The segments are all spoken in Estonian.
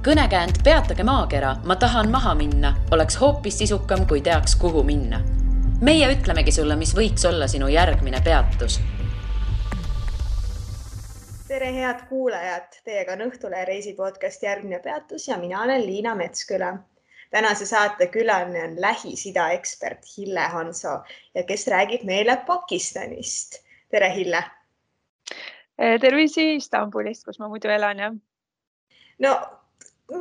Kõnekäänd Peatage maakera, ma tahan maha minna, oleks hoopis sisukam, kui teaks, kuhu minna. Meie ütlemegi sulle, mis võiks olla sinu järgmine peatus. Tere head kuulajad, teiega on Õhtulehe reisipodcast Järgmine peatus ja mina olen Liina Metsküla. Tänase saate külaline on Lähis-Ida ekspert Hille Hanso, ja kes räägib meile Pakistanist. Tere Hille! Tervisi Istanbulist, kus ma muidu elan. Ja. No,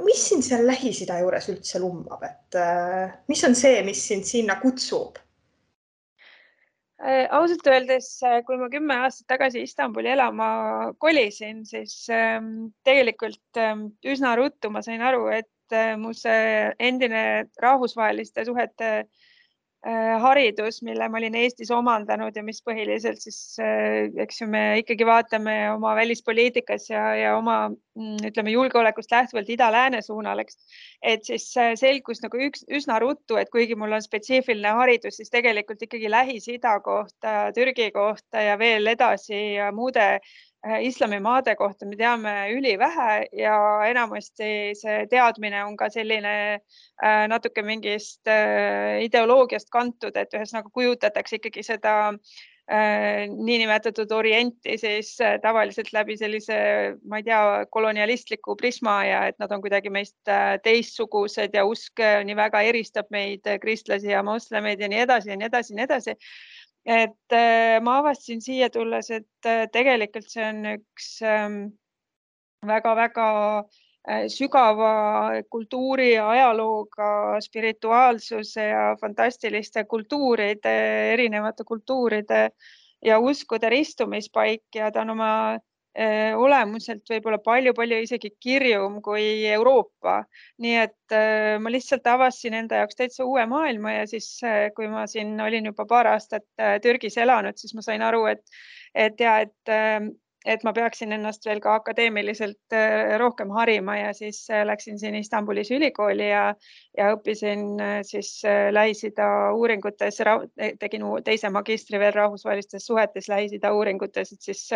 mis sind seal Lähis-Ida juures üldse lummab? Mis on see, mis sind sinna kutsub? Ausalt öeldes, kui ma 10 aastat tagasi Istanbuli elama kolisin, siis tegelikult üsna ruttu ma sain aru, et mu see endine rahvusvaheliste suhete haridus, mille ma olin Eestis omandanud ja mis põhiliselt siis, eks ju, me ikkagi vaatame oma välispoliitikas ja oma, ütleme, julgeolekust lähtuvalt ida-lääne suunal, et siis selgus nagu üsna ruttu, et kuigi mul on spetsiifiline haridus, siis tegelikult ikkagi Lähis-Ida kohta, Türgi kohta ja veel edasi ja muude islamimaade kohta me teame ülivähe ja enamasti see teadmine on ka selline natuke mingist ideoloogiast kantud, et ühesõnaga kujutatakse ikkagi seda niinimetatud orienti siis tavaliselt läbi sellise, ma ei tea, kolonialistliku prisma ja et nad on kuidagi meist teistsugused ja usk nii väga eristab meid kristlasi ja moslemeid ja nii edasi ja nii edasi ja nii edasi. Et ma avastasin siia tulles, et tegelikult see on üks väga-väga sügava kultuuri ja ajalooga, spirituaalsuse ja fantastiliste kultuuride, erinevate kultuuride ja uskude ristumispaik ja ta on oma olemuselt võib-olla palju-palju isegi kirjum kui Euroopa. Nii et ma lihtsalt avastasin enda jaoks täitsa uue maailma ja siis, kui ma siin olin juba paar aastat Türgis elanud, siis ma sain aru, et ma peaksin ennast veel ka akadeemiliselt rohkem harima ja siis läksin siin Istanbulis ülikooli ja õppisin siis Lähis-Ida uuringutes, tegin teise magistri veel rahvusvahelistes suhetes Lähis-Ida uuringutes, et siis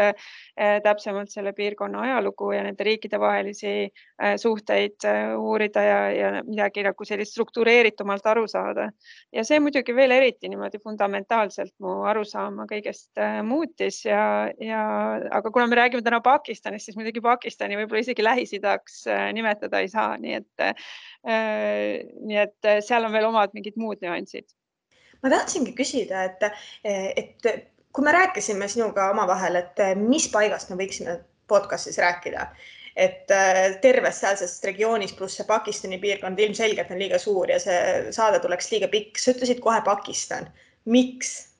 täpsemalt selle piirkonna ajalugu ja nende riikide vahelisi suhteid uurida ja midagi nagu sellist struktureeritumalt aru saada. Ja see muidugi veel eriti niimoodi fundamentaalselt mu arusaama kõigest muutis aga kuna me räägime täna Pakistanist, siis muidugi Pakistani võib-olla isegi Lähis-Idaks nimetada ei saa, nii et seal on veel omad mingid muud nüansid. Ma tahtsingi küsida, et kui me rääkisime sinuga omavahel, et mis paigast me võiksime podcastis rääkida, et terves sealsest regioonis pluss see Pakistani piirkond ilmselgelt on liiga suur ja see saade tuleks liiga pikk. Sa ütlesid kohe Pakistan. Miks?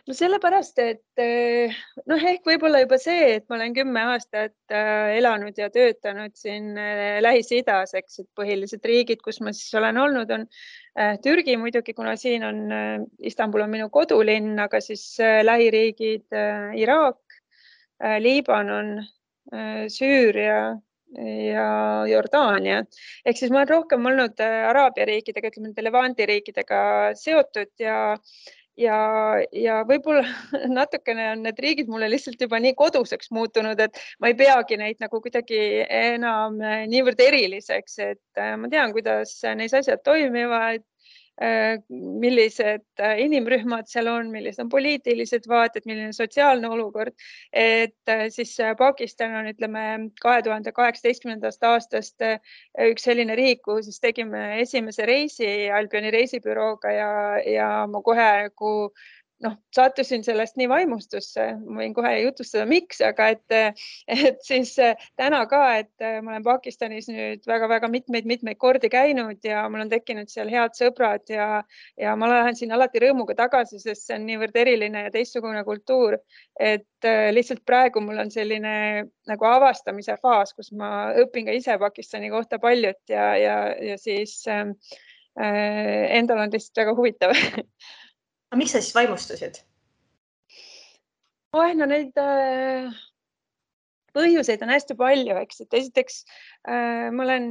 No sellepärast, et ehk võib-olla juba see, et ma olen 10 aastat elanud ja töötanud siin Lähis-Idas, eks, et põhilised riigid, kus ma siis olen olnud, on Türgi muidugi, kuna siin on Istanbul on minu kodulinn, aga siis lähiriigid Iraak, Liibanon, Süüria ja Jordaania. Ehk siis ma olen rohkem olnud Araabia riikidega, ütleme Levanti riikidega seotud ja võib-olla natukene on need riigid mulle lihtsalt juba nii koduseks muutunud, et ma ei peagi neid nagu kuidagi enam niivõrd eriliseks, et ma tean, kuidas neis asjad toimivad, millised inimrühmad seal on, millised on poliitilised vaated, milline sotsiaalne olukord, et siis Pakistan on, ütleme, 2018. aastast üks selline riik, kuhu siis tegime esimese reisi Albioni reisibürooga ja ma kohe sattusin sellest nii vaimustusse, ma võin kohe jutustada miks, aga et siis täna ka, et ma olen Pakistanis nüüd väga-väga mitmeid kordi käinud ja mul on tekkinud seal head sõbrad ja ma lähen siin alati rõõmuga tagasi, sest see on niivõrd eriline ja teistsugune kultuur, et lihtsalt praegu mul on selline nagu avastamise faas, kus ma õpin ka ise Pakistani kohta paljut ja siis endal on lihtsalt väga huvitav. Aga miks sa siis vaimustusid? Neid põhjuseid on hästi palju, eks, et esiteks ma olen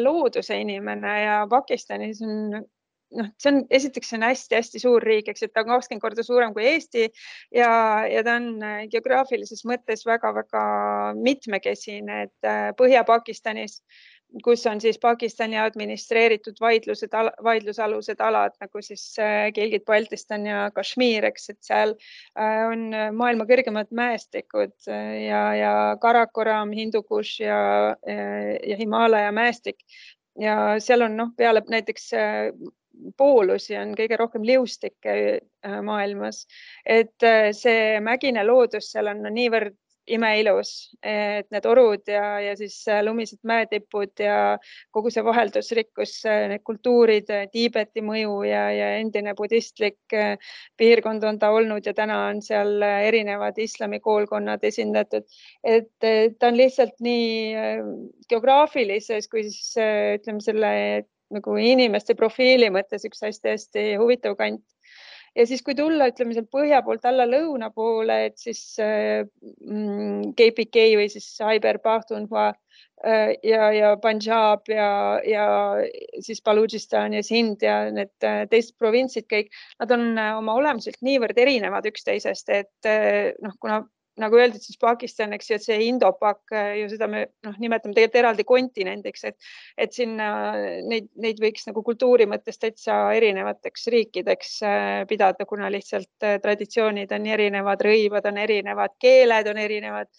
looduse inimene ja Pakistanis on see on, esiteks see on hästi-hästi suur riik, eks, et ta on 20 korda suurem kui Eesti ja ta on geograafilises mõttes väga-väga mitmekesine, et Põhja-Pakistanis, kus on siis Pakistani administreeritud vaidlusalused alad nagu siis Gilgit-Baltistan ja Kashmir, eks, et seal on maailma kõrgemad mäestikud ja Karakoram, Hindukush ja Himaalaja mäestik ja seal on peale näiteks poolusi on kõige rohkem liustikke maailmas, et see mägine loodus seal on niivõrd imeilus, et need orud ja siis lumised mäetipud ja kogu see vaheldusrikkus, need kultuurid, Tiibeti mõju ja endine budistlik piirkond on ta olnud ja täna on seal erinevad islamikoolkonnad esindatud, et ta on lihtsalt nii geograafilises kui siis ütleme selle nagu inimeste profiili mõttes üks hästi-hästi huvitav kant. Ja siis, kui tulla, ütleme seal põhja poolt alla lõuna poole, et siis KPK või siis Khyber Pakhtunkhwa ja Punjab ja siis Balochistan ja Sind ja need teised provintsid kõik, nad on oma olemuselt niivõrd erinevad üksteisest, et kuna nagu öeldud, siis Pakistan, eks ju, et see Indo-Pak ju seda me nimetame tegelikult eraldi kontinendiks, et sinna neid võiks nagu kultuuri mõttes täitsa erinevateks riikideks pidada, kuna lihtsalt traditsioonid on erinevad, rõivad on erinevad, keeled on erinevad.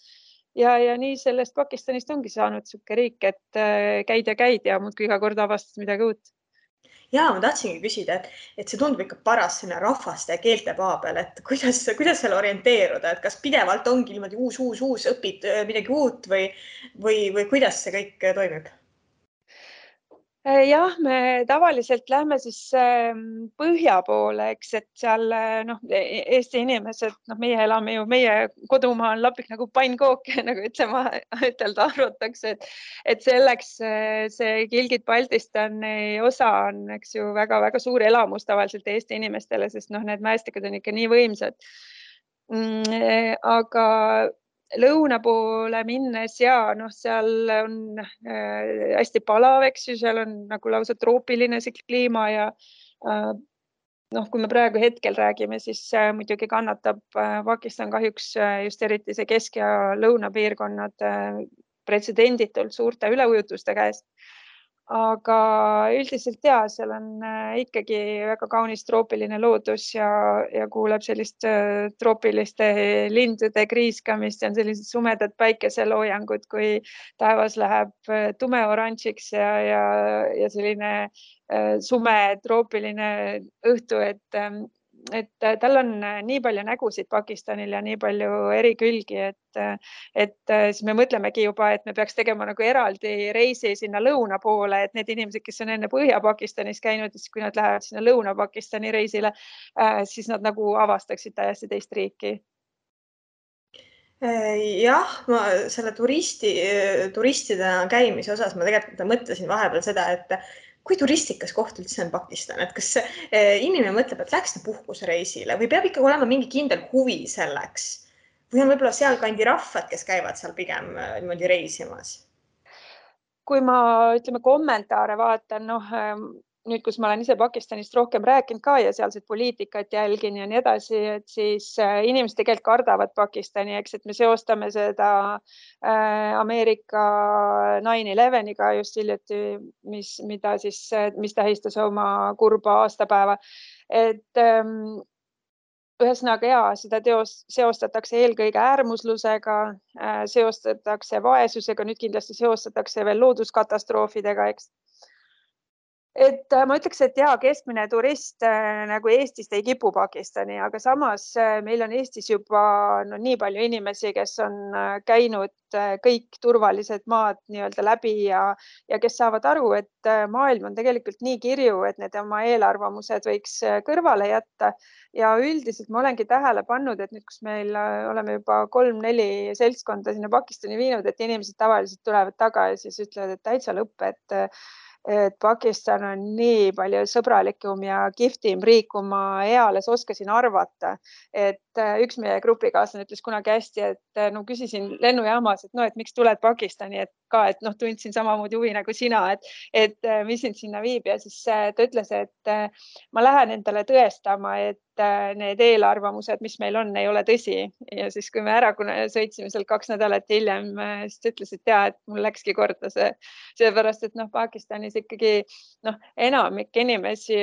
Ja nii sellest Pakistanist ongi saanud suke riik, et käid ja muudkui iga kord avastad midagi uut. Ja, ma tahtsingi küsida, et see tundub ikka paras sinna rahvaste ja keelte paa peal, et kuidas seal orienteeruda, et kas pidevalt ongi niimoodi uus, õpid midagi uut või kuidas see kõik toimib? Jah, me tavaliselt lähme siis põhja poole, eks, et seal Eesti inimesed, meie elame ju, meie kodumaa on lapik nagu pannkook, nagu ütelda arvatakse, et selleks see Gilgit-Baltistani osa on, eks ju, väga-väga suur elamus tavaliselt Eesti inimestele, sest need mäestikud on ikka nii võimsad. Aga lõuna poole minnes ja seal on hästi palav, eks ju, seal on nagu lausa troopiline see kliima ja kui me praegu hetkel räägime, siis muidugi kannatab Pakistan kahjuks just eriti see kesk- ja lõunapiirkonnad pretsedenditult suurte üleujutuste käes. Aga üldiselt seal on ikkagi väga kaunis troopiline loodus ja kuuleb sellist troopiliste lindude kriiskamist ja on sellised sumedad päikeseloojangud, kui taevas läheb tumeoranžiks ja selline sume troopiline õhtu, et tal on nii palju nägusid Pakistanil ja nii palju eri külgi, et siis me mõtlemegi juba, et me peaks tegema nagu eraldi reisi sinna lõuna poole, et need inimesed, kes on enne Põhja-Pakistanis käinud, siis kui nad lähevad sinna Lõuna-Pakistani reisile, siis nad nagu avastaksid täiesti teist riiki. Jah, ma selle turistidena käimise osas ma tegelikult mõtlesin vahepeal seda, et kui turistikas koht üldse on Pakistan, et kas inimene mõtleb, et läks puhkusereisile või peab ikka olema mingi kindel huvi selleks või on võib-olla seal kandi rahvad, kes käivad seal pigem niimoodi reisimas? Kui ma kommentaare vaatan, nüüd, kus ma olen ise Pakistanist rohkem rääkinud ka ja sealset poliitikat jälgin ja nii edasi, et siis inimesed tegelikult kardavad Pakistani, eks, et me seostame seda Ameerika 9/11-iga just hiljuti, mis tähistas oma kurba aastapäeva. Et ühesõnaga seda seostatakse eelkõige äärmuslusega, seostatakse vaesusega, nüüd kindlasti seostatakse veel looduskatastroofidega, eks. Et ma ütleks, et keskmine turist nagu Eestist ei kipu Pakistani, aga samas meil on Eestis juba nii palju inimesi, kes on käinud kõik turvalised maad nii-öelda läbi ja kes saavad aru, et maailm on tegelikult nii kirju, et need oma eelarvamused võiks kõrvale jätta. Ja üldiselt ma olengi tähele pannud, et nüüd, kus meil oleme juba 3-4 seltskonda sinna Pakistani viinud, et inimesed tavaliselt tulevad taga ja siis ütlevad, et täitsa lõpp, et Pakistan on nii palju sõbralikum ja kihvtim riik, kui ma eales oskasin arvata. Et üks meie grupikaaslane ütles kunagi hästi, et küsisin lennujaamas, et miks tuled Pakistani, et ka, et noh, tundsin samamoodi huvi nagu sina, et mis sind sinna viib ja siis ta ütles, et ma lähen endale tõestama, et need eelarvamused, mis meil on, ei ole tõsi. Ja siis, kui me ära sõitsime seal 2 nädalat hiljem, siis ta ütles, et et mul läkski korda see, seepärast, et noh, Pakistanis ikkagi enamik inimesi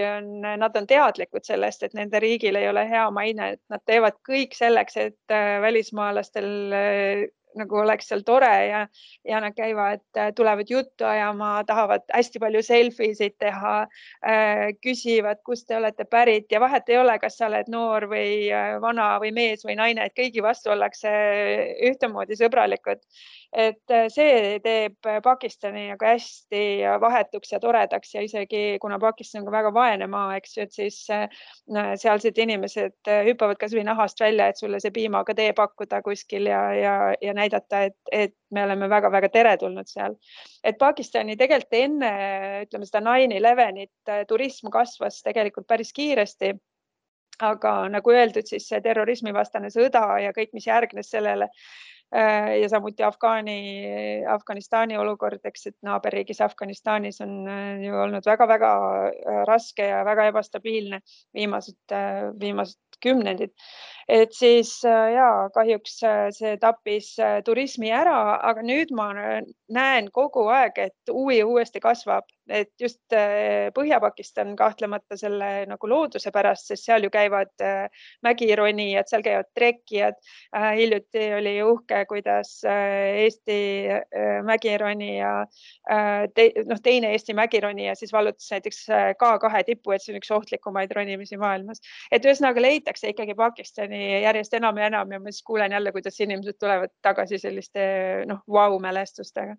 nad on teadlikud sellest, et nende riigil ei ole hea maine, et nad teevad kõik selleks, et välismaalastel nagu oleks seal tore ja nad käivad, tulevad juttu ajama, tahavad hästi palju selfisid teha, küsivad, kust te olete pärit ja vahet ei ole, kas sa oled noor või vana või mees või naine, et kõigi vastu ollakse ühtemoodi sõbralikud. Et see teeb Pakistani nagu hästi vahetuks ja toredaks ja isegi kuna Pakistan on väga vaene maa, eks ju, et siis sealsed inimesed hüppavad kas või nahast välja, et sulle see piimaga tee pakkuda kuskil ja näidata, et me oleme väga-väga teretulnud seal. Et Pakistani tegelikult enne, ütleme seda 9/11 turism kasvas tegelikult päris kiiresti. Aga nagu öeldud, siis see terrorismivastane sõda ja kõik, mis järgnes sellele ja samuti Afganistani olukord, eks, et naaberriigis Afganistanis on ju olnud väga-väga raske ja väga ebastabiilne viimased kümnendid. Et siis kahjuks see tappis turismi ära, aga nüüd ma näen kogu aeg, et uuesti kasvab, et just Põhja-Pakistan kahtlemata selle nagu looduse pärast, sest seal ju käivad mägironijad, seal käivad trekkijad. Hiljuti oli uhke, kuidas Eesti mägironija, teine Eesti mägironija siis vallutas näiteks K2 tippu, et see on üks ohtlikumaid ronimisi maailmas. Et ühesõnaga leitakse ikkagi Pakistani järjest enam ja enam ja ma siis kuulen jälle, kuidas inimesed tulevad tagasi selliste vau-mälestustega.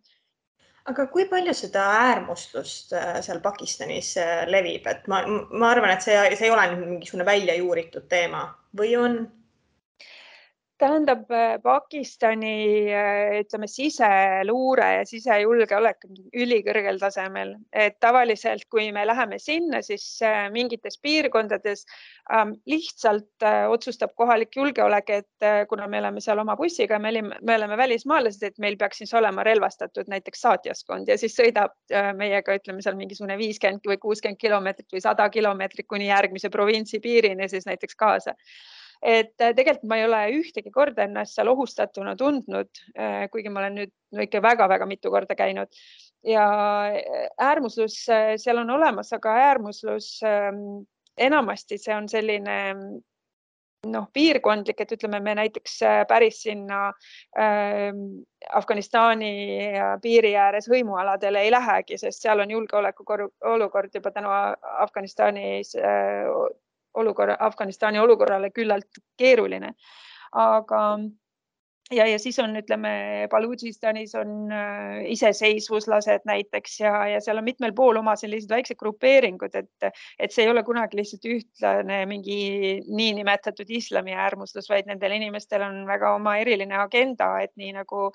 Aga kui palju seda äärmuslust seal Pakistanis levib? Et ma arvan, et see ei ole mingisugune välja juuritud teema või on? Tähendab, Pakistani ütleme siseluure ja sisejulgeolek ülikõrgel tasemel. Et tavaliselt, kui me läheme sinna, siis mingites piirkondades lihtsalt otsustab kohalik julgeolek, et kuna me oleme seal oma bussiga, me oleme välismaalased, et meil peaks siis olema relvastatud näiteks saatjaskond ja siis sõidab meiega, ütleme seal mingisugune 50 või 60 kilomeetrit või 100 kilomeetrit kuni järgmise provintsi piirini siis näiteks kaasa. Et tegelikult ma ei ole ühtegi korda ennast seal ohustatuna tundnud, kuigi ma olen nüüd ikka väga-väga mitu korda käinud. Ja äärmuslus seal on olemas, aga äärmuslus enamasti see on selline piirkondlik, et ütleme, me näiteks päris sinna Afganistani piiri ääres hõimualadele ei lähegi, sest seal on julgeoleku olukord juba tänu Afganistani olukorrale küllalt keeruline. Aga ja siis on, ütleme, Baludžistanis on iseseisvuslased näiteks ja seal on mitmel pool oma sellised väiksed grupeeringud, et see ei ole kunagi lihtsalt ühtlane mingi niinimetatud islami äärmuslus, vaid nendel inimestel on väga oma eriline agenda, et nii nagu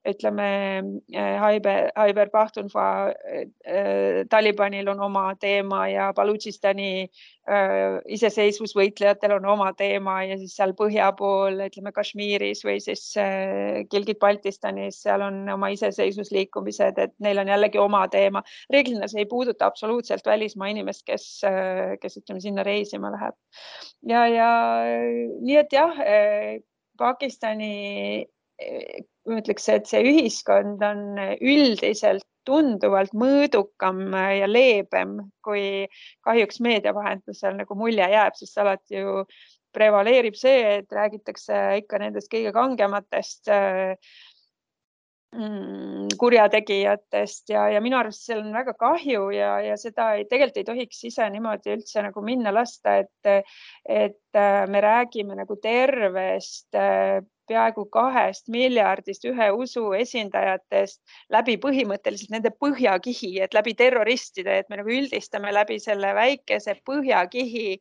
ütleme, Khyber Pakhtunkhva Talibanil on oma teema ja Baludžistani iseseisvusvõitlejatel on oma teema ja siis seal põhja pool, ütleme Kashmiris või siis Gilgit-Baltistanis, seal on oma iseseisvusliikumised, et neil on jällegi oma teema. Reeglina see ei puuduta absoluutselt välismaa inimest, kes ütleme sinna reisima läheb. Ja nii, et jah, Pakistani, ütleks, et see ühiskond on üldiselt tunduvalt mõõdukam ja leebem, kui kahjuks meedia vahendusel nagu mulje jääb, sest alati ju prevaleerib see, et räägitakse ikka nendest kõige kangematest kurjategijatest ja minu arust seal on väga kahju ja seda tegelikult ei tohiks ise niimoodi üldse nagu minna lasta, et me räägime nagu tervest peaaegu 2 miljardist ühe usu esindajatest läbi põhimõtteliselt nende põhjakihi, et läbi terroristide, et me nagu üldistame läbi selle väikese põhjakihi,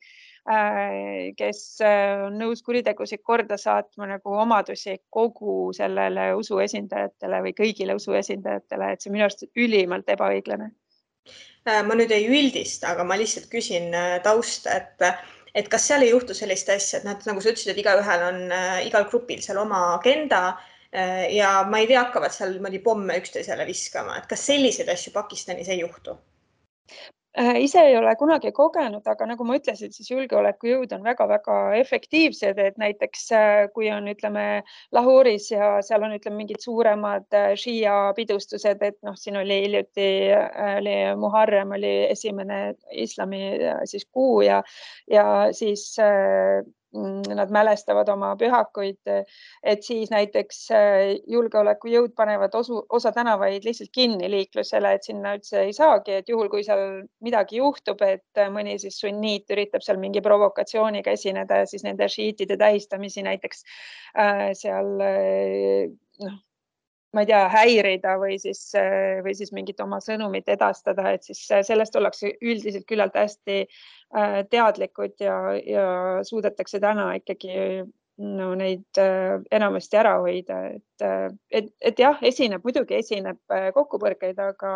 kes on nõus kuritegusid korda saatma nagu omadusi kogu sellele usu esindajatele või kõigile usu esindajatele, et see minu arust ülimalt ebaõiglane. Ma nüüd ei üldista, aga ma lihtsalt küsin tausta, et kas seal ei juhtu sellist asja, et nagu sa ütlesid, et igaühel on igal grupil seal oma agenda, ja ma ei tea, hakkavad seal pomme üksteisele viskama, et kas selliseid asju Pakistanis ei juhtu? Ise ei ole kunagi kogenud, aga nagu ma ütlesin, siis julgeolekujõud on väga-väga efektiivsed, et näiteks kui on, ütleme, Lahoris ja seal on, ütleme, mingid suuremad Shia pidustused, et siin oli hiljuti Muharrem oli esimene islami siis kuu ja siis nad mälestavad oma pühakuid, et siis näiteks julgeolekujõud panevad osa tänavaid lihtsalt kinni liiklusele, et sinna üldse ei saagi, et juhul, kui seal midagi juhtub, et mõni siis sunniit üritab seal mingi provokatsiooniga esineda ja siis nende šiitide tähistamisi näiteks seal ma ei tea, häirida või siis mingit oma sõnumit edastada, et siis sellest ollakse üldiselt küllalt hästi teadlikud ja suudetakse täna ikkagi neid enamasti ära hoida, et jah, muidugi esineb kokkupõrkeid, aga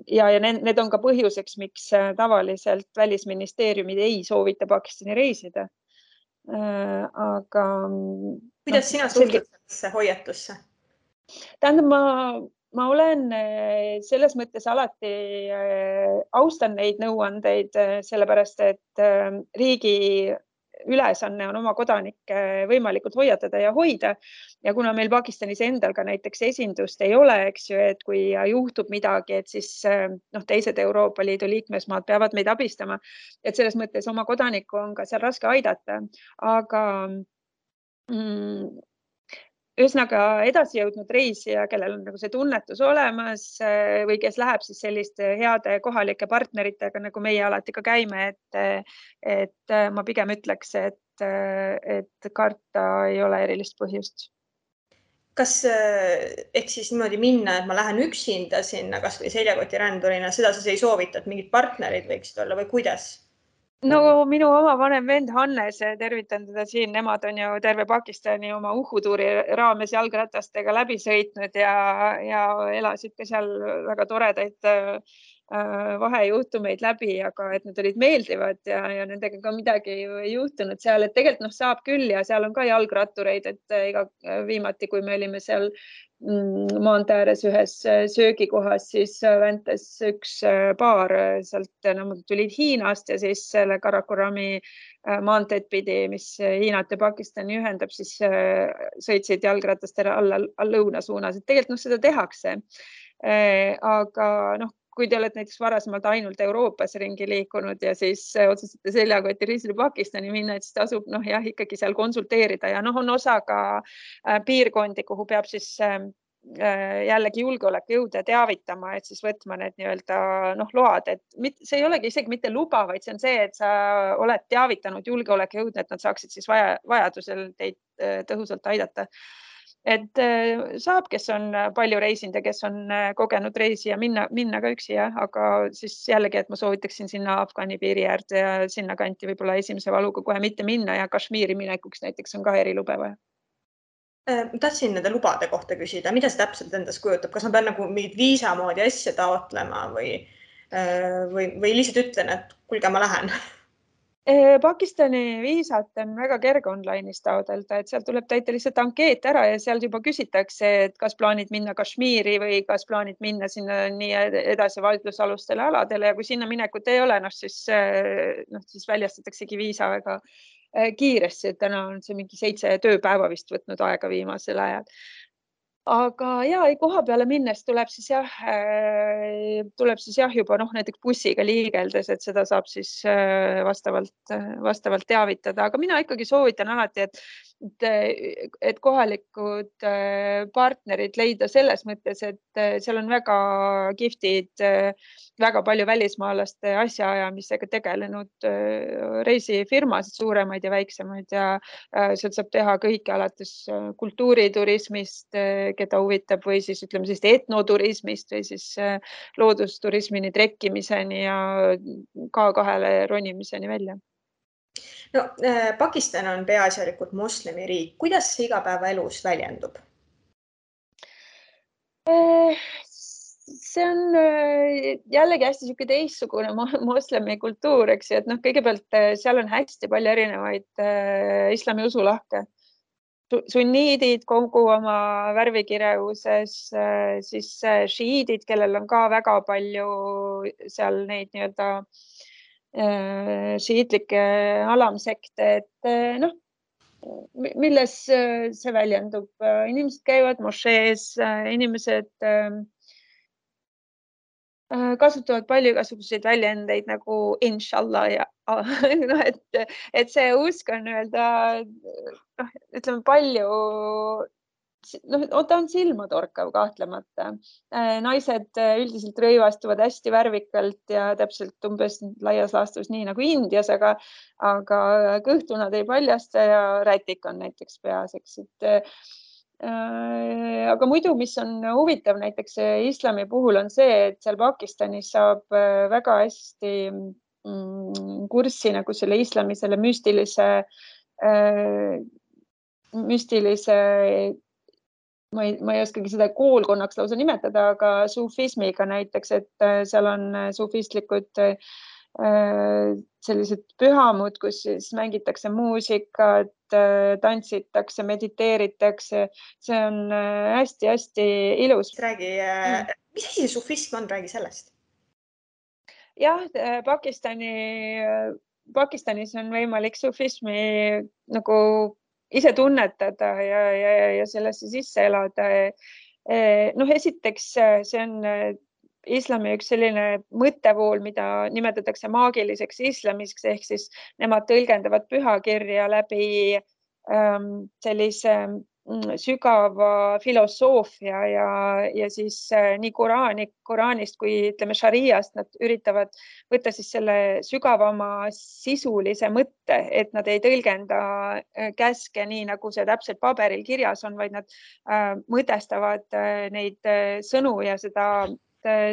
ja need on ka põhjuseks, miks tavaliselt välisministeeriumid ei soovita Pakistani reisida. Aga kuidas sina suhtud sellesse hoiatusse? Tähendab, ma olen selles mõttes alati austan neid nõuandeid, sellepärast et riigi ülesanne on oma kodanikke võimalikult hoiatada ja hoida. Ja kuna meil Pakistanis endal ka näiteks esindust ei ole, eks ju, et kui juhtub midagi, et siis teised Euroopa Liidu liikmesmaad peavad meid abistama. Et selles mõttes oma kodanikku on ka seal raske aidata, aga ühesõnaga edasi jõudnud reisija, kellel on nagu see tunnetus olemas või kes läheb siis selliste heade kohalike partneritega, nagu meie alati ka käime, et ma pigem ütleks, et karta ei ole erilist põhjust. Kas ehk siis niimoodi minna, et ma lähen üksinda sinna kas või seljakotirändurina, seda sa ei soovita, et mingid partnerid võiksid olla või kuidas? No minu oma vanem vend Hannes, tervitan teda siin, nemad on ju terve Pakistani oma uhutuuri raames jalgratastega läbi sõitnud ja elasid ka seal väga toredaid vahejuhtumeid läbi, aga et need olid meeldivad ja nendega ka midagi ei juhtunud seal, et tegelikult saab küll ja seal on ka jalgrattureid, et viimati, kui me olime seal maantee ääres ühes söögikohas, siis väntas üks paar sealt, nad tulid Hiinast ja siis selle Karakorami maanteed pidi, mis Hiinat ja Pakistani ühendab, siis sõitsid jalgratastele alla lõuna suunas, et tegelikult seda tehakse. Aga kui te olete näiteks varasemalt ainult Euroopas ringi liikunud ja siis otsustate seljakoti reisile Pakistani minna, et siis tasub ikkagi seal konsulteerida ja on osa ka piirkondi, kuhu peab siis jällegi julgeolekujõude teavitama, et siis võtma need load, et see ei olegi isegi mitte luba, vaid see on see, et sa oled teavitanud julgeolekujõude, et nad saaksid siis vajadusel teid tõhusalt aidata. Et saab, kes on palju reisinud ja kes on kogenud reisi ja minna ka üksi, aga siis jällegi, et ma soovitaksin sinna Afgani piiri äärde ja sinna kanti võib-olla esimese valuga kohe mitte minna ja Kashmiri minekuks näiteks on ka erilube vaja. Tahtsin nende lubade kohta küsida, mida see täpselt endast kujutab, kas ma pean mingit viisa moodi asja taotlema või lihtsalt ütlen, et kuulge, ma lähen? Pakistani viisat on väga kerge online'is taodelda, et seal tuleb täita lihtsalt ankeet ära ja seal juba küsitakse, et kas plaanid minna Kashmiri või kas plaanid minna sinna nii edasi vaidlusalustele aladele ja kui sinna minekut ei ole, siis väljastataksegi viisa väga kiiresti, et täna on see mingi 7 tööpäeva vist võtnud aega viimasel ajal. Aga koha peale minnes tuleb siis juba näiteks bussiga liigeldes, et seda saab siis vastavalt teavitada, aga mina ikkagi soovitan alati, et kohalikud partnerid leida selles mõttes, et seal on väga kihvtid, väga palju välismaalaste asjaajamisega tegelenud reisifirmasid, suuremaid ja väiksemaid ja sealt saab teha kõike alates kultuuriturismist, keda huvitab või siis ütleme sellist etnoturismist või siis loodusturismini, trekkimiseni ja K2-le ronimiseni välja. No, Pakistan on peaasjalikult moslemi riik. Kuidas see igapäevaelus väljendub? See on jällegi hästi teistsugune moslemi kultuur, eks ju, et kõigepealt seal on hästi palju erinevaid islami usulahke. sunniidid kogu oma värvikirevuses, siis šiidid, kellel on ka väga palju seal neid nii-öelda šiitlikke alamsekte, et noh, milles see väljendub. Inimesed käivad mošees, inimesed kasutavad palju igasuguseid väljendeid nagu inshallah ja no, et see usk on öelda, ütleme palju, ta on silmatorkav kahtlemata. Naised üldiselt rõivastuvad hästi värvikalt ja täpselt umbes laias laastus nii nagu Indias, aga kõhtu nad ei paljasta ja rätik on näiteks peas, eks, aga muidu, mis on huvitav näiteks islami puhul on see, et seal Pakistanis saab väga hästi kurssi nagu selle islami, selle müstilise, ma ei oskagi seda koolkonnaks lausa nimetada, aga sufismiga näiteks, et seal on sufistlikud sellised pühamud, kus siis mängitakse muusikat, tantsitakse, mediteeritakse. See on hästi-hästi ilus. Räägi, mis asi see sufism on, räägi sellest. Jah, Pakistanis on võimalik sufismi nagu ise tunnetada ja sellesse sisse elada. Esiteks, see on islami üks selline mõttevool, mida nimetatakse maagiliseks islamiks, ehk siis nemad tõlgendavad pühakirja läbi sellise sügava filosoofia ja siis nii Koraanist kui ütleme šariast nad üritavad võtta siis selle sügavama sisulise mõtte, et nad ei tõlgenda käske nii, nagu see täpselt paberil kirjas on, vaid nad mõtestavad neid sõnu ja seda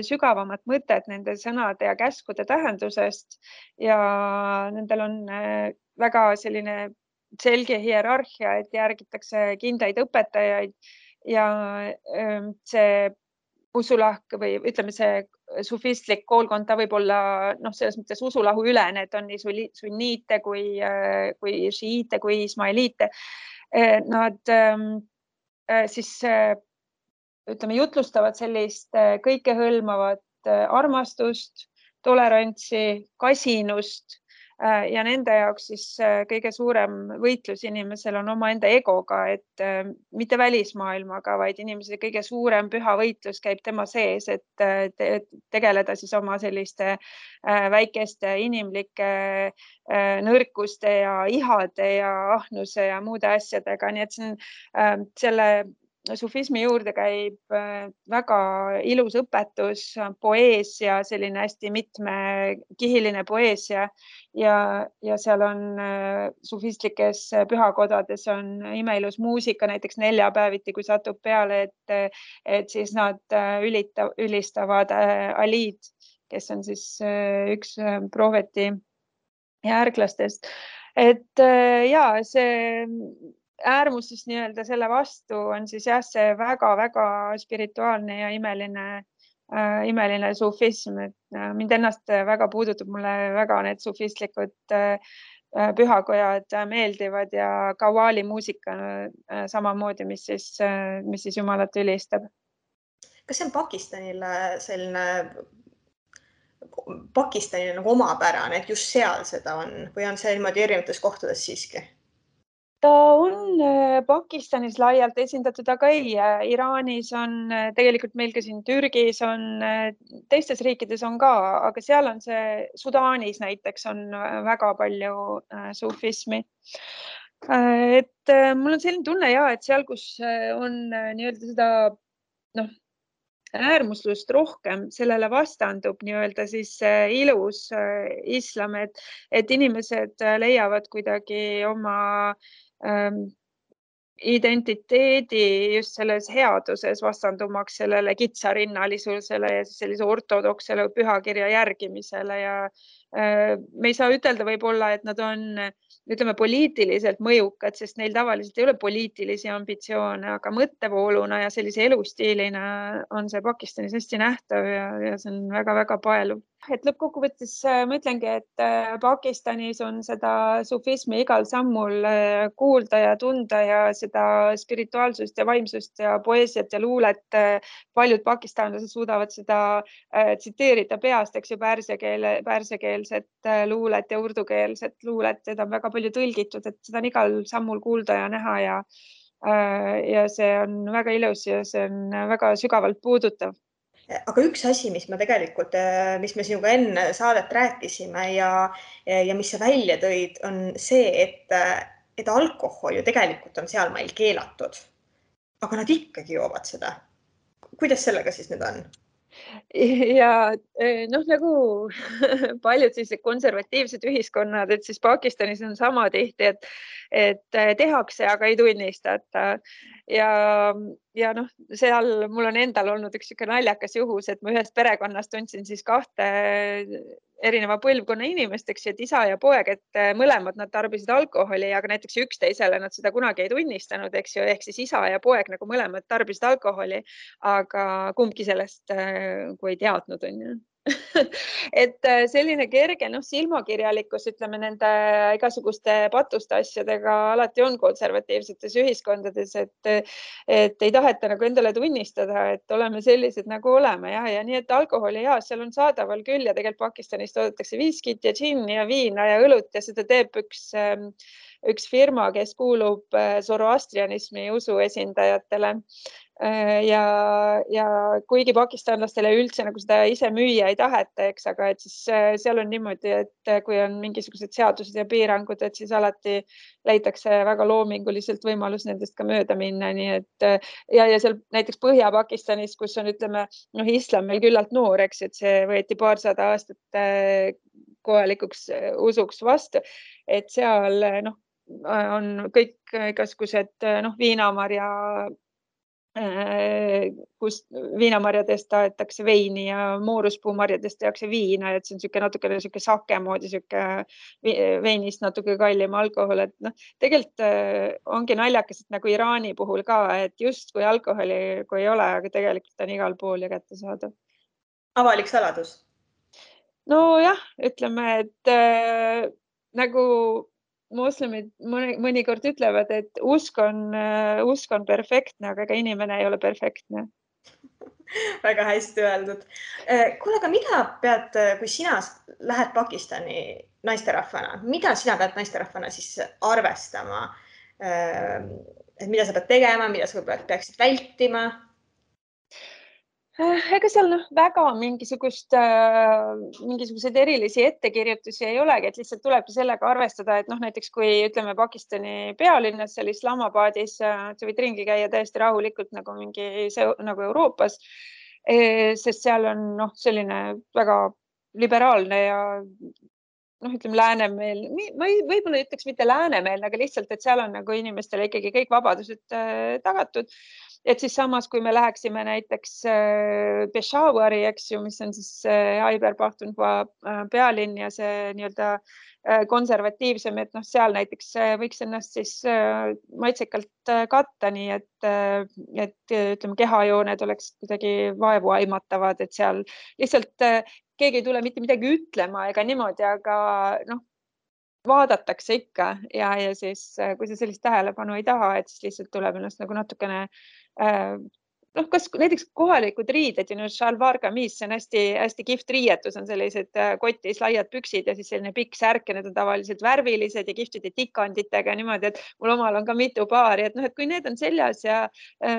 sügavamat mõtet nende sõnade ja käskude tähendusest ja nendel on väga selline selge hierarhia, et järgitakse kindlaid õpetajaid ja see usulahk või ütleme, see sufistlik koolkond, ta võib olla selles mõttes usulahu ülene, et on nii sunniite kui šiite kui ismailiite. Nad siis ütleme, jutlustavad sellist kõikehõlmavat armastust, tolerantsi, kasinust ja nende jaoks siis kõige suurem võitlus inimesel on omaenda egoga, et mitte välismaailmaga, vaid inimese kõige suurem püha võitlus käib tema sees, et tegeleda siis oma selliste väikeste inimlike nõrkuste ja ihade ja ahnuse ja muude asjadega. Nii et see on selle sufismi juurde käib väga ilus õpetus, poeesia, selline hästi mitmekihiline poeesia ja seal on sufistlikes pühakodades on imeilus muusika, näiteks neljapäeviti, kui satub peale, et siis nad ülistavad Alid, kes on siis üks prohveti järglastest. Et ja, see äärmuses nii-öelda selle vastu on siis jah, see väga-väga spirituaalne ja imeline sufism, et mind ennast väga puudutab, mulle väga need sufistlikud pühakojad meeldivad ja kawali muusika samamoodi, mis siis Jumalat ülistab. Kas see on Pakistanile nagu omapärane, et just seal seda on või on see niimoodi erinevates kohtades siiski? Ta on Pakistanis laialt esindatud, aga ei, Iraanis on tegelikult meil ka siin Türgis on, teistes riikides on ka, aga seal on see Sudaanis näiteks on väga palju sufismi. Et mul on selline tunne ja, et seal, kus on nii-öelda seda äärmuslust rohkem, sellele vastandub nii-öelda siis ilus islam, et inimesed leiavad kuidagi oma identiteedi just selles headuses vastandumaks sellele kitsarinnalisusele ja sellise ortodoksele pühakirja järgimisele ja me ei saa ütelda võib-olla, et nad on, ütleme, poliitiliselt mõjukad, sest neil tavaliselt ei ole poliitilisi ambitsioone, aga mõttevooluna ja sellise elustiilina on see Pakistanis hästi nähtav ja see on väga-väga paeluv. et lõppkokkuvõttes ma ütlengi, et Pakistanis on seda sufismi igal sammul kuulda ja tunda ja seda spirituaalsust ja vaimsust ja poeesiat ja luulet. Paljud pakistanlased suudavad seda tsiteerida peast, eks ju, pärsiakeelset luulet ja urdukeelset luulet. Seda on väga palju tõlgitud, et seda on igal sammul kuulda ja näha ja see on väga ilus ja see on väga sügavalt puudutav. Aga üks asi, mis me sinuga enne saadet rääkisime ja mis sa välja tõid, on see, et alkohol ju tegelikult on seal meil keelatud. Aga nad ikkagi joovad seda. Kuidas sellega siis nüüd on? Ja nagu paljud sellised konservatiivsed ühiskonnad, et siis Pakistanis on sama tihti, et tehakse, aga ei tunnistata. Ja seal mul on endal olnud üks siuke naljakas juhus, et ma ühest perekonnast tundsin siis kahte erineva põlvkonna inimest, eks ju, et isa ja poeg, et mõlemad nad tarbisid alkoholi, aga näiteks üksteisele nad seda kunagi ei tunnistanud, eks ju, ehk siis isa ja poeg nagu mõlemad tarbisid alkoholi, aga kumbki sellest kui ei teadnud, on ju. Et selline kerge silmakirjalikkus, ütleme, nende igasuguste patuste asjadega alati on konservatiivsetes ühiskondades, et ei taheta nagu endale tunnistada, et oleme sellised nagu oleme ja nii, et alkoholi seal on saadaval küll ja tegelikult Pakistanis toodetakse viskit ja džinni ja viina ja õlut ja seda teeb üks firma, kes kuulub zoroastrianismi usu esindajatele. Ja kuigi pakistanlastele üldse nagu seda ise müüa ei taheta, eks, aga et siis seal on niimoodi, et kui on mingisugused seadused ja piirangud, et siis alati leitakse väga loominguliselt võimalus nendest ka mööda minna. Nii et ja seal näiteks Põhja-Pakistanis, kus on, ütleme, islam meil küllalt noor, eks, et see võeti paarsada aastat kohalikuks usuks vastu, et seal on kõik igasugused viinamarja kus viinamarjadest taetakse veini ja mooruspuumarjadest tehakse viina, et see on natukene sake moodi, veinist natuke kallim alkohol, et tegelikult ongi naljakas, et nagu Iraani puhul ka, et just kui alkoholi kui ei ole, aga tegelikult on igal pool ja kättesaadav. Avalik saladus? Nojah, ütleme, et nagu moslemid mõnikord ütlevad, et usk on perfektne, aga ega inimene ei ole perfektne. Väga hästi öeldud. Kuule, aga mida pead, kui sina lähed Pakistani naisterahvana, mida sina pead naisterahvana siis arvestama? Et mida sa pead tegema, mida sa peaksid vältima? Ega seal väga mingisuguseid erilisi ettekirjutusi ei olegi, et lihtsalt tulebki sellega arvestada, et näiteks kui ütleme Pakistani pealinnas, seal Islamabadis, sa võid ringi käia täiesti rahulikult nagu Euroopas, sest seal on selline väga liberaalne ja ütleme läänemeel, võib-olla ütleks mitte läänemeelne, aga lihtsalt, et seal on nagu inimestele ikkagi kõik vabadused tagatud. Et siis samas, kui me läheksime näiteks Peshawari, eks ju, mis on siis Khyber Pakhtunkhwa pealinn ja see nii-öelda konservatiivsem, et seal näiteks võiks ennast siis maitsekalt katta, nii et ütleme, kehajooned oleks kuidagi vaevu aimatavad, et seal lihtsalt keegi ei tule mitte midagi ütlema ega niimoodi, aga vaadatakse ikka ja siis, kui sa sellist tähelepanu ei taha, et siis lihtsalt tuleb ennast nagu natukene kas näiteks kohalikud riided ja shalwar kameez, see on hästi kihvt riietus, on sellised kotis laiad püksid ja siis selline pikk särk ja need on tavaliselt värvilised ja kihvtide tikanditega niimoodi, et mul omal on ka mitu paari, et kui need on seljas ja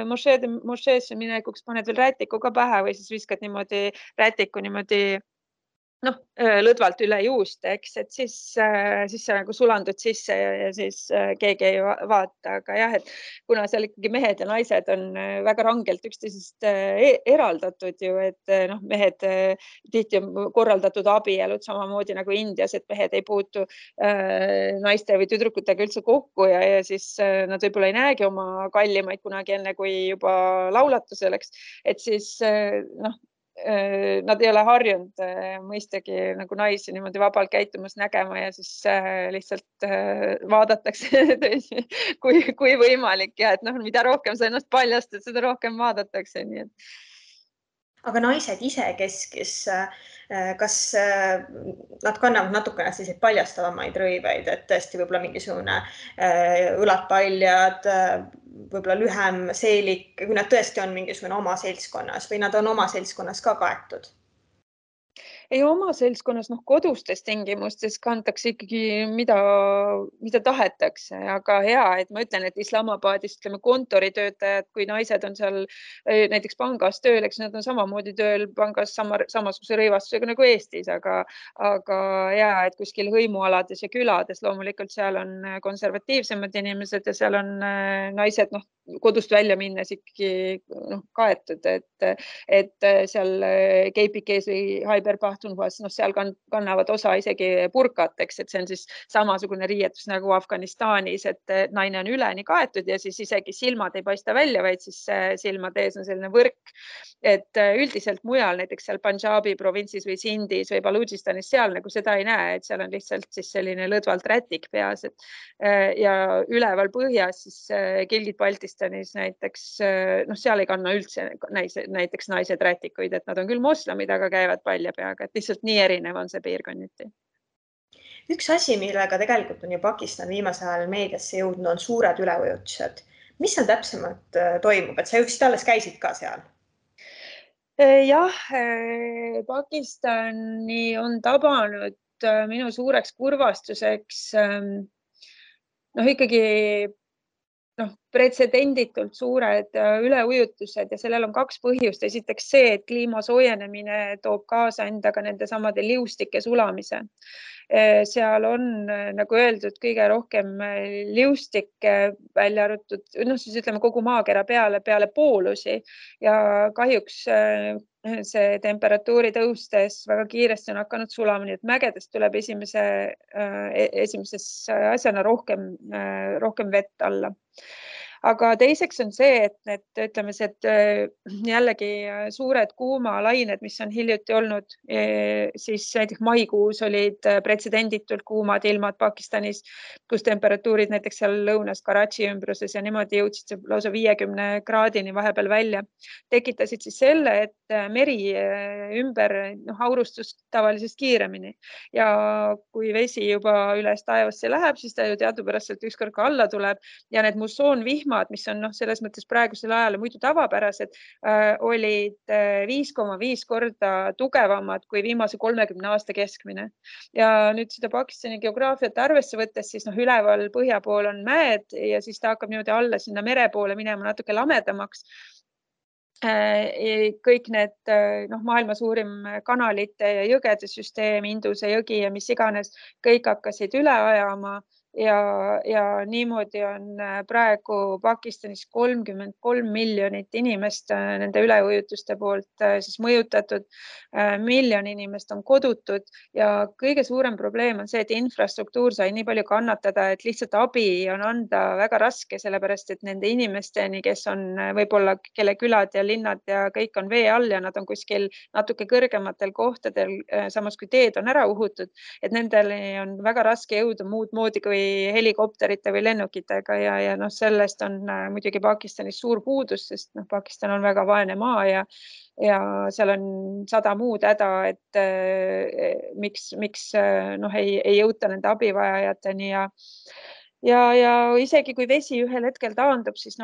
mošeesse minekuks paned veel rätiku ka pähe või siis viskad niimoodi rätiku niimoodi lõdvalt üle juust, eks, et siis sa nagu sulandud sisse ja siis keegi ei vaata, aga jah, et kuna seal ikkagi mehed ja naised on väga rangelt üksteisest eraldatud ju, et mehed tihti on korraldatud abielud samamoodi nagu Indias, et mehed ei puutu naiste või tüdrukutega üldse kokku ja siis nad võib-olla ei näegi oma kallimaid kunagi enne, kui juba laulatusel, et siis nad ei ole harjunud mõistagi nagu naisi niimoodi vabalt käitumas nägema ja siis lihtsalt vaadatakse kui võimalik ja et mida rohkem sa ennast paljastad, seda rohkem vaadatakse. Nii et. aga naised isekeskis, kas nad kannavad natukene selliseid paljastavamaid rõiveid, et tõesti võib-olla mingisugune õlad paljad, võib-olla lühem seelik, kui nad tõesti on mingisugune oma seltskonnas või nad on oma seltskonnas ka kaetud? Ei oma seltskonnas, kodustes tingimustes kantakse ikkagi mida tahetakse, aga hea, et ma ütlen, et Islamabadis, ütleme, kontoritöötajad, kui naised on seal näiteks pangas tööl, eks nad on samamoodi tööl pangas samasuguse rõivastusega nagu Eestis, aga hea, et kuskil hõimualades ja külades loomulikult seal on konservatiivsemad inimesed ja seal on naised, kodust välja minnes ikkagi kaetud, et seal keipikees või Haiber-Pahtunhvas, seal kannavad osa isegi burkateks, et see on siis samasugune riietus nagu Afganistanis, et naine on üleni kaetud ja siis isegi silmad ei paista välja, vaid siis silmade ees on selline võrk. Et üldiselt mujal, näiteks seal Punjabi provintsis või Sindis või Baludžistanis, seal nagu seda ei näe, et seal on lihtsalt siis selline lõdvalt rätik peas. Ja üleval põhjas siis Gilgit Baltistanis näiteks, seal ei kanna üldse näiteks naised rätikuid, et nad on küll moslemid, aga käivad palja peaga, et lihtsalt nii erinev on see piirkonniti. Üks asi, millega tegelikult on ju Pakistan viimasel ajal meediasse jõudnud, on suured üleujutused. Mis seal täpsemalt toimub, et sa just alles käisid ka seal? Jah, Pakistani on tabanud minu suureks kurvastuseks ikkagi pretsedenditult suured üleujutused ja sellel on kaks põhjust. Esiteks see, et kliima soojenemine toob kaasa endaga nende samade liustike sulamise. Seal on, nagu öeldud, kõige rohkem liustikke välja arvatud, siis ütleme kogu maakera peale poolusi ja kahjuks see temperatuuri tõustes väga kiiresti on hakanud sulama, nii et mägedest tuleb esimeses asjana rohkem vett alla. Aga teiseks on see, et ütleme, et jällegi suured kuumalained, mis on hiljuti olnud, siis näiteks maikuus olid pretsedenditult kuumad ilmad Pakistanis, kus temperatuurid näiteks seal lõunas Karachi ümbruses ja niimoodi jõudsid lausa 50 kraadini vahepeal välja. Tekitasid siis selle, et meri ümber aurustus tavalisest kiiremini ja kui vesi juba üles taevasse läheb, siis ta ju teadupäraselt ükskord ka alla tuleb ja need mussoonvihmad, mis on selles mõttes praegusel ajal muidu tavapärased, olid 5,5 korda tugevamad kui viimase 30 aasta keskmine. Ja nüüd seda Pakistani geograafiat arvesse võttes, siis üleval põhja pool on mäed ja siis ta hakkab niimoodi alla sinna mere poole minema natuke lamedamaks. Kõik need maailma suurim kanalite ja jõgede süsteem, Induse jõgi ja mis iganes, kõik hakkasid üle ajama ja niimoodi on praegu Pakistanis 33 miljonit inimest nende üleujutuste poolt siis mõjutatud. Miljon inimest on kodutud ja kõige suurem probleem on see, et infrastruktuur sai nii palju kannatada, et lihtsalt abi on anda väga raske, sellepärast et nende inimesteni, kes on võib-olla, kelle külad ja linnad ja kõik on vee all ja nad on kuskil natuke kõrgematel kohtadel, samas kui teed on ära uhutud, et nendele on väga raske jõuda muud moodi kui helikopterite või lennukitega ja sellest on muidugi Pakistanis suur puudus, sest Pakistan on väga vaene maa ja seal on 100 muud häda, et miks ei jõuta nende abivajajateni ja isegi kui vesi ühel hetkel taandub, siis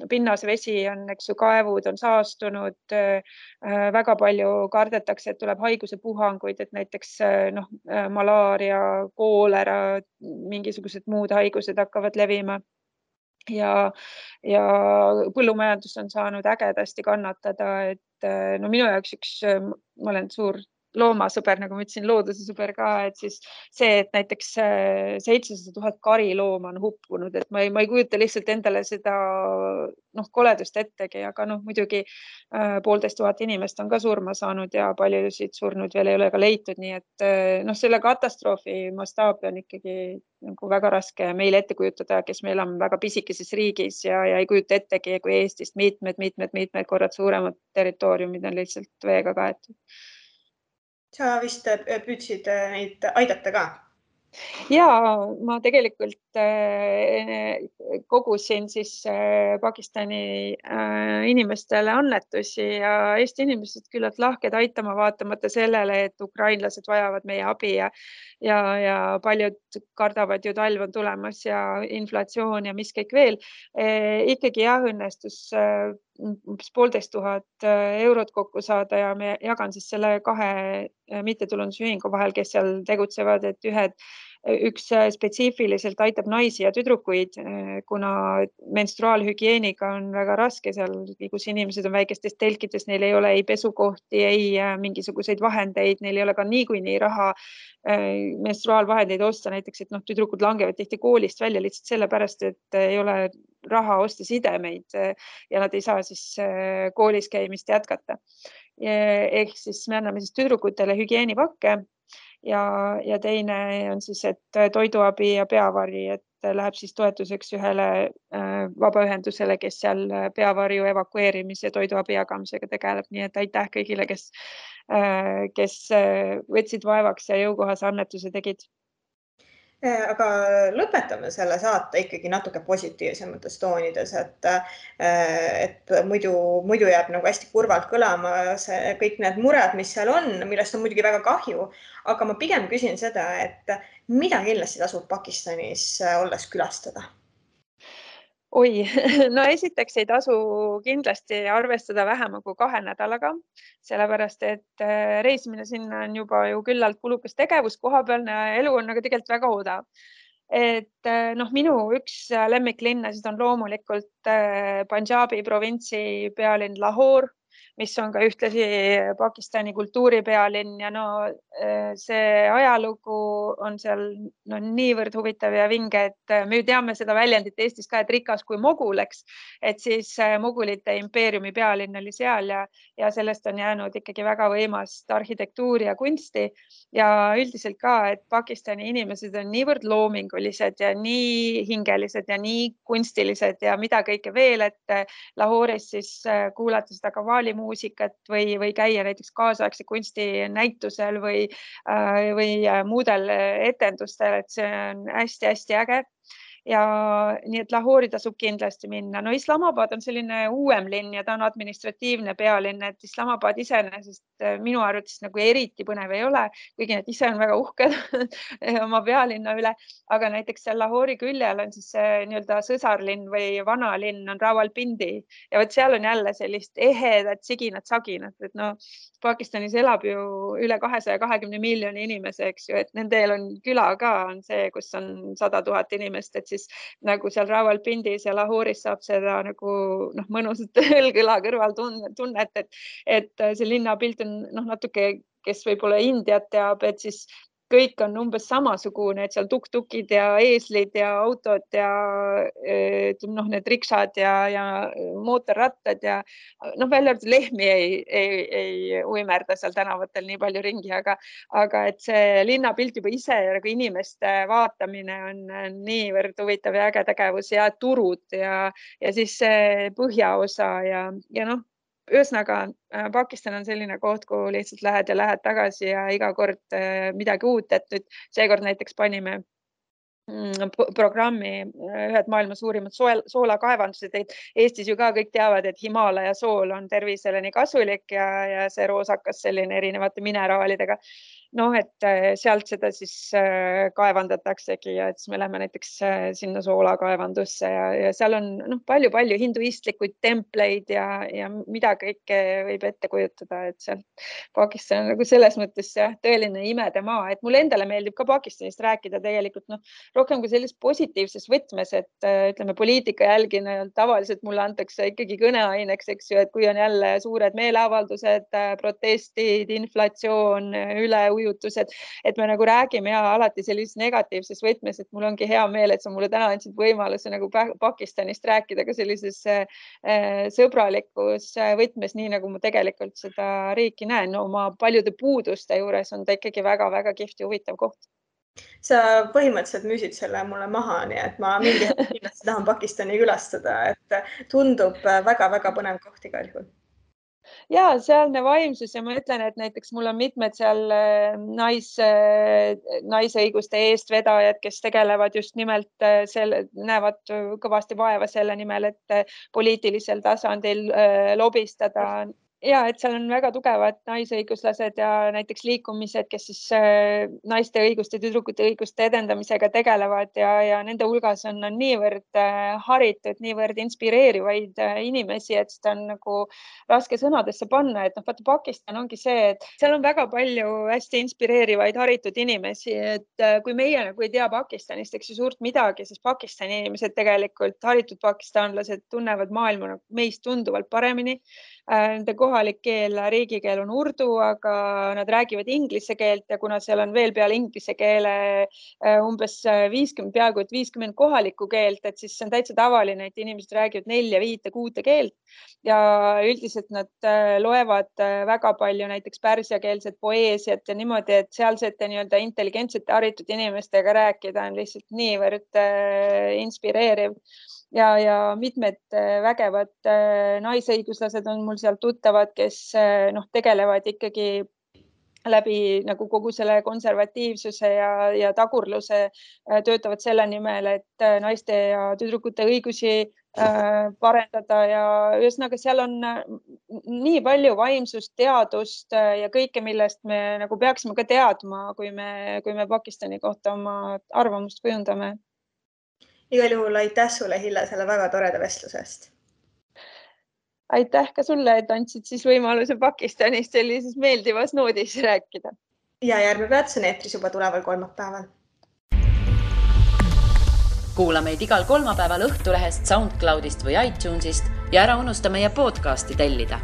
pinnasvesi on, kaevud on saastunud, väga palju kardetakse, et tuleb haigusepuhanguid, et näiteks malaaria, koolera, mingisugused muud haigused hakkavad levima ja põllumajandus on saanud ägedasti kannatada, et minu jaoks ma olen suur loomasõber, nagu ma ütlesin, looduse sõber ka, et siis see, et näiteks 700 000 karilooma on hukkunud, et ma ei kujuta lihtsalt endale seda koledust ettegi, aga muidugi 1500 inimest on ka surma saanud ja paljusid surnud veel ei ole ka leitud, nii et selle katastroofi mastaabi on ikkagi väga raske meil ette kujutada, kes me elame väga pisikeses riigis ja ei kujuta ettegi, kui Eestist mitmed korrad suuremad territooriumid on lihtsalt veega kaetud. Sa vist püüdsid neid aidata ka? Ja ma tegelikult kogusin siis Pakistani inimestele annetusi ja Eesti inimesed küllalt lahked aitama, vaatamata sellele, et ukrainlased vajavad meie abi ja paljud kardavad ju talv on tulemas ja inflatsioon ja mis kõik veel. Ikkagi jah, õnnestus umbes 1500 eurot kokku saada ja me jagan siis selle 2 mittetulundusühingu vahel, kes seal tegutsevad, et üks spetsiifiliselt aitab naisi ja tüdrukuid, kuna menstruaalhügieeniga on väga raske seal, kus inimesed on väikestes telkides, neil ei ole ei pesukohti, ei mingisuguseid vahendeid, neil ei ole ka niikuinii raha menstruaalvahendeid osta, näiteks, et tüdrukud langevad tihti koolist välja lihtsalt sellepärast, et ei ole raha osta sidemeid ja nad ei saa siis koolis käimist jätkata. Ehk siis me anname siis tüdrukutele hügieenipakke ja teine on siis, et toiduabi ja peavari, et läheb siis toetuseks ühele vabaühendusele, kes seal peavarju evakueerimise ja toiduabi jagamisega tegeleb. Nii et aitäh kõigile, kes võtsid vaevaks ja jõukohase annetuse tegid. Aga lõpetame selle saate ikkagi natuke positiivsemates toonides, et muidu jääb nagu hästi kurvalt kõlama kõik need mured, mis seal on, millest on muidugi väga kahju, aga ma pigem küsin seda, et mida kindlasti tasub Pakistanis olles külastada? Oi, no esiteks ei tasu kindlasti arvestada vähema kui 2 nädalaga, sellepärast et reisimine sinna on juba ju küllalt kulukas tegevus, kohapealne elu on aga tegelikult väga odav. Et minu üks lemmiklinnasid on loomulikult Punjabi provintsi pealinn Lahore, mis on ka ühtlasi Pakistani kultuuripealinn ja see ajalugu on seal niivõrd huvitav ja vinge, et me ju teame seda väljendit Eestis ka, et rikas kui Mogul, eks, et siis Mogulite impeeriumi pealinn oli seal ja sellest on jäänud ikkagi väga võimast arhitektuuri ja kunsti ja üldiselt ka, et Pakistani inimesed on niivõrd loomingulised ja nii hingelised ja nii kunstilised ja mida kõike veel, et Lahore'is siis kuulata seda kavaali muusikat või käia näiteks kaasaegse kunsti näitusel või muudel etendustel, et see on hästi-hästi äge. Ja nii, et Lahori tasub kindlasti minna. No Islamabad on selline uuem linn ja ta on administratiivne pealinn, et Islamabad iseenesest minu arvates nagu eriti põnev ei ole, kuigi need ise on väga uhked oma pealinna üle, aga näiteks seal Lahori küljel on siis nii-öelda sõsarlinn või vanalinn on Rawalpindi ja võt seal on jälle sellist ehedat siginat-saginat, et Pakistanis elab ju üle 220 miljoni inimese, eks ju, et nendel on küla ka on see, kus on 100 000 inimest, et siis nagu seal Rawalpindis ja Lahoris saab seda nagu mõnusat õlg-õla kõrval tunnet, et see linnapilt on natuke, kes võib-olla Indiat teab, et siis kõik on umbes samasugune, et seal tuk-tukid ja eeslid ja autod ja need riksad ja mootorrattad ja välja arvatud lehmi ei uimerda seal tänavatel nii palju ringi, aga et see linnapilt juba ise ja nagu inimeste vaatamine on niivõrd huvitav ja äge tegevus ja turud ja siis see põhjaosa ja ühesõnaga, Pakistan on selline koht, kuhu lihtsalt lähed tagasi ja iga kord midagi uut, et nüüd seekord näiteks panime programmi ühed maailma suurimad soolakaevandused. Eestis ju ka kõik teavad, et Himalaja sool on tervisele nii kasulik ja see roosakas selline erinevate mineraalidega. Et sealt seda siis kaevandataksegi ja et siis me läheme näiteks sinna soolakaevandusse ja seal on palju hinduistlikuid templeid ja mida kõike võib ette kujutada, et seal Pakistan on nagu selles mõttes tõeline imedemaa, et mulle endale meeldib ka Pakistanist rääkida tegelikult rohkem kui selles positiivses võtmes, et ütleme poliitika jälgina tavaliselt mulle antakse ikkagi kõneaineks, eks ju, et kui on jälle suured meeleavaldused, protestid, inflatsioon, üleujutused, et me nagu räägime alati sellises negatiivses võtmes, et mul ongi hea meel, et sa mulle täna andsid võimaluse nagu Pakistanist rääkida ka sellises sõbralikus võtmes, nii nagu ma tegelikult seda riiki näen. Oma paljude puuduste juures on ta ikkagi väga-väga kihvt ja huvitav koht. Sa põhimõtteliselt müüsid selle mulle maha, nii et ma mingi hetk kindlasti tahan Pakistani külastada, et tundub väga-väga põnev koht igal juhul. Ja sealne vaimsus ja ma ütlen, et näiteks mul on mitmed seal naisõiguste eestvedajad, kes tegelevad just nimelt näevad kõvasti vaeva selle nimel, et poliitilisel tasandil lobistada. Ja, et seal on väga tugevad naisõiguslased ja näiteks liikumised, kes siis naiste õiguste, tüdrukute õiguste edendamisega tegelevad ja nende hulgas on niivõrd haritud, niivõrd inspireerivaid inimesi, et seda on nagu raske sõnadesse panna, et vaata Pakistan ongi see, et seal on väga palju hästi inspireerivaid haritud inimesi, et kui meie nagu ei tea Pakistanist, eks ju suurt midagi, siis Pakistani inimesed tegelikult, haritud pakistanlased tunnevad maailma meist tunduvalt paremini. Nende kohalik keel, riigikeel on urdu, aga nad räägivad inglise keelt ja kuna seal on veel peale inglise keele umbes 50 kohalikku keelt, et siis see on täitsa tavaline, et inimesed räägivad 4, 5, 6 keelt ja üldiselt nad loevad väga palju näiteks pärsiakeelset poeesiat ja niimoodi, et sealsete nii-öelda intelligentsete haritud inimestega rääkida on lihtsalt niivõrd inspireeriv. Ja mitmed vägevad naisõiguslased on mul seal tuttavad, kes tegelevad ikkagi läbi nagu kogu selle konservatiivsuse ja tagurluse töötavad selle nimel, et naiste ja tüdrukute õigusi parendada ja ühesõnaga seal on nii palju vaimsust, teadust ja kõike, millest me nagu peaksime ka teadma, kui me Pakistani kohta oma arvamust kujundame. Igal juhul aitäh sulle, Hille, selle väga toreda vestlusest. Aitäh ka sulle, et andsid siis võimaluse Pakistanist sellises meeldivas noodis rääkida. Ja järgmine peatus on eetris juba tuleval kolmapäeval. Kuula meid igal kolmapäeval Õhtulehest, SoundCloudist või iTunesist ja ära unusta meie podcasti tellida.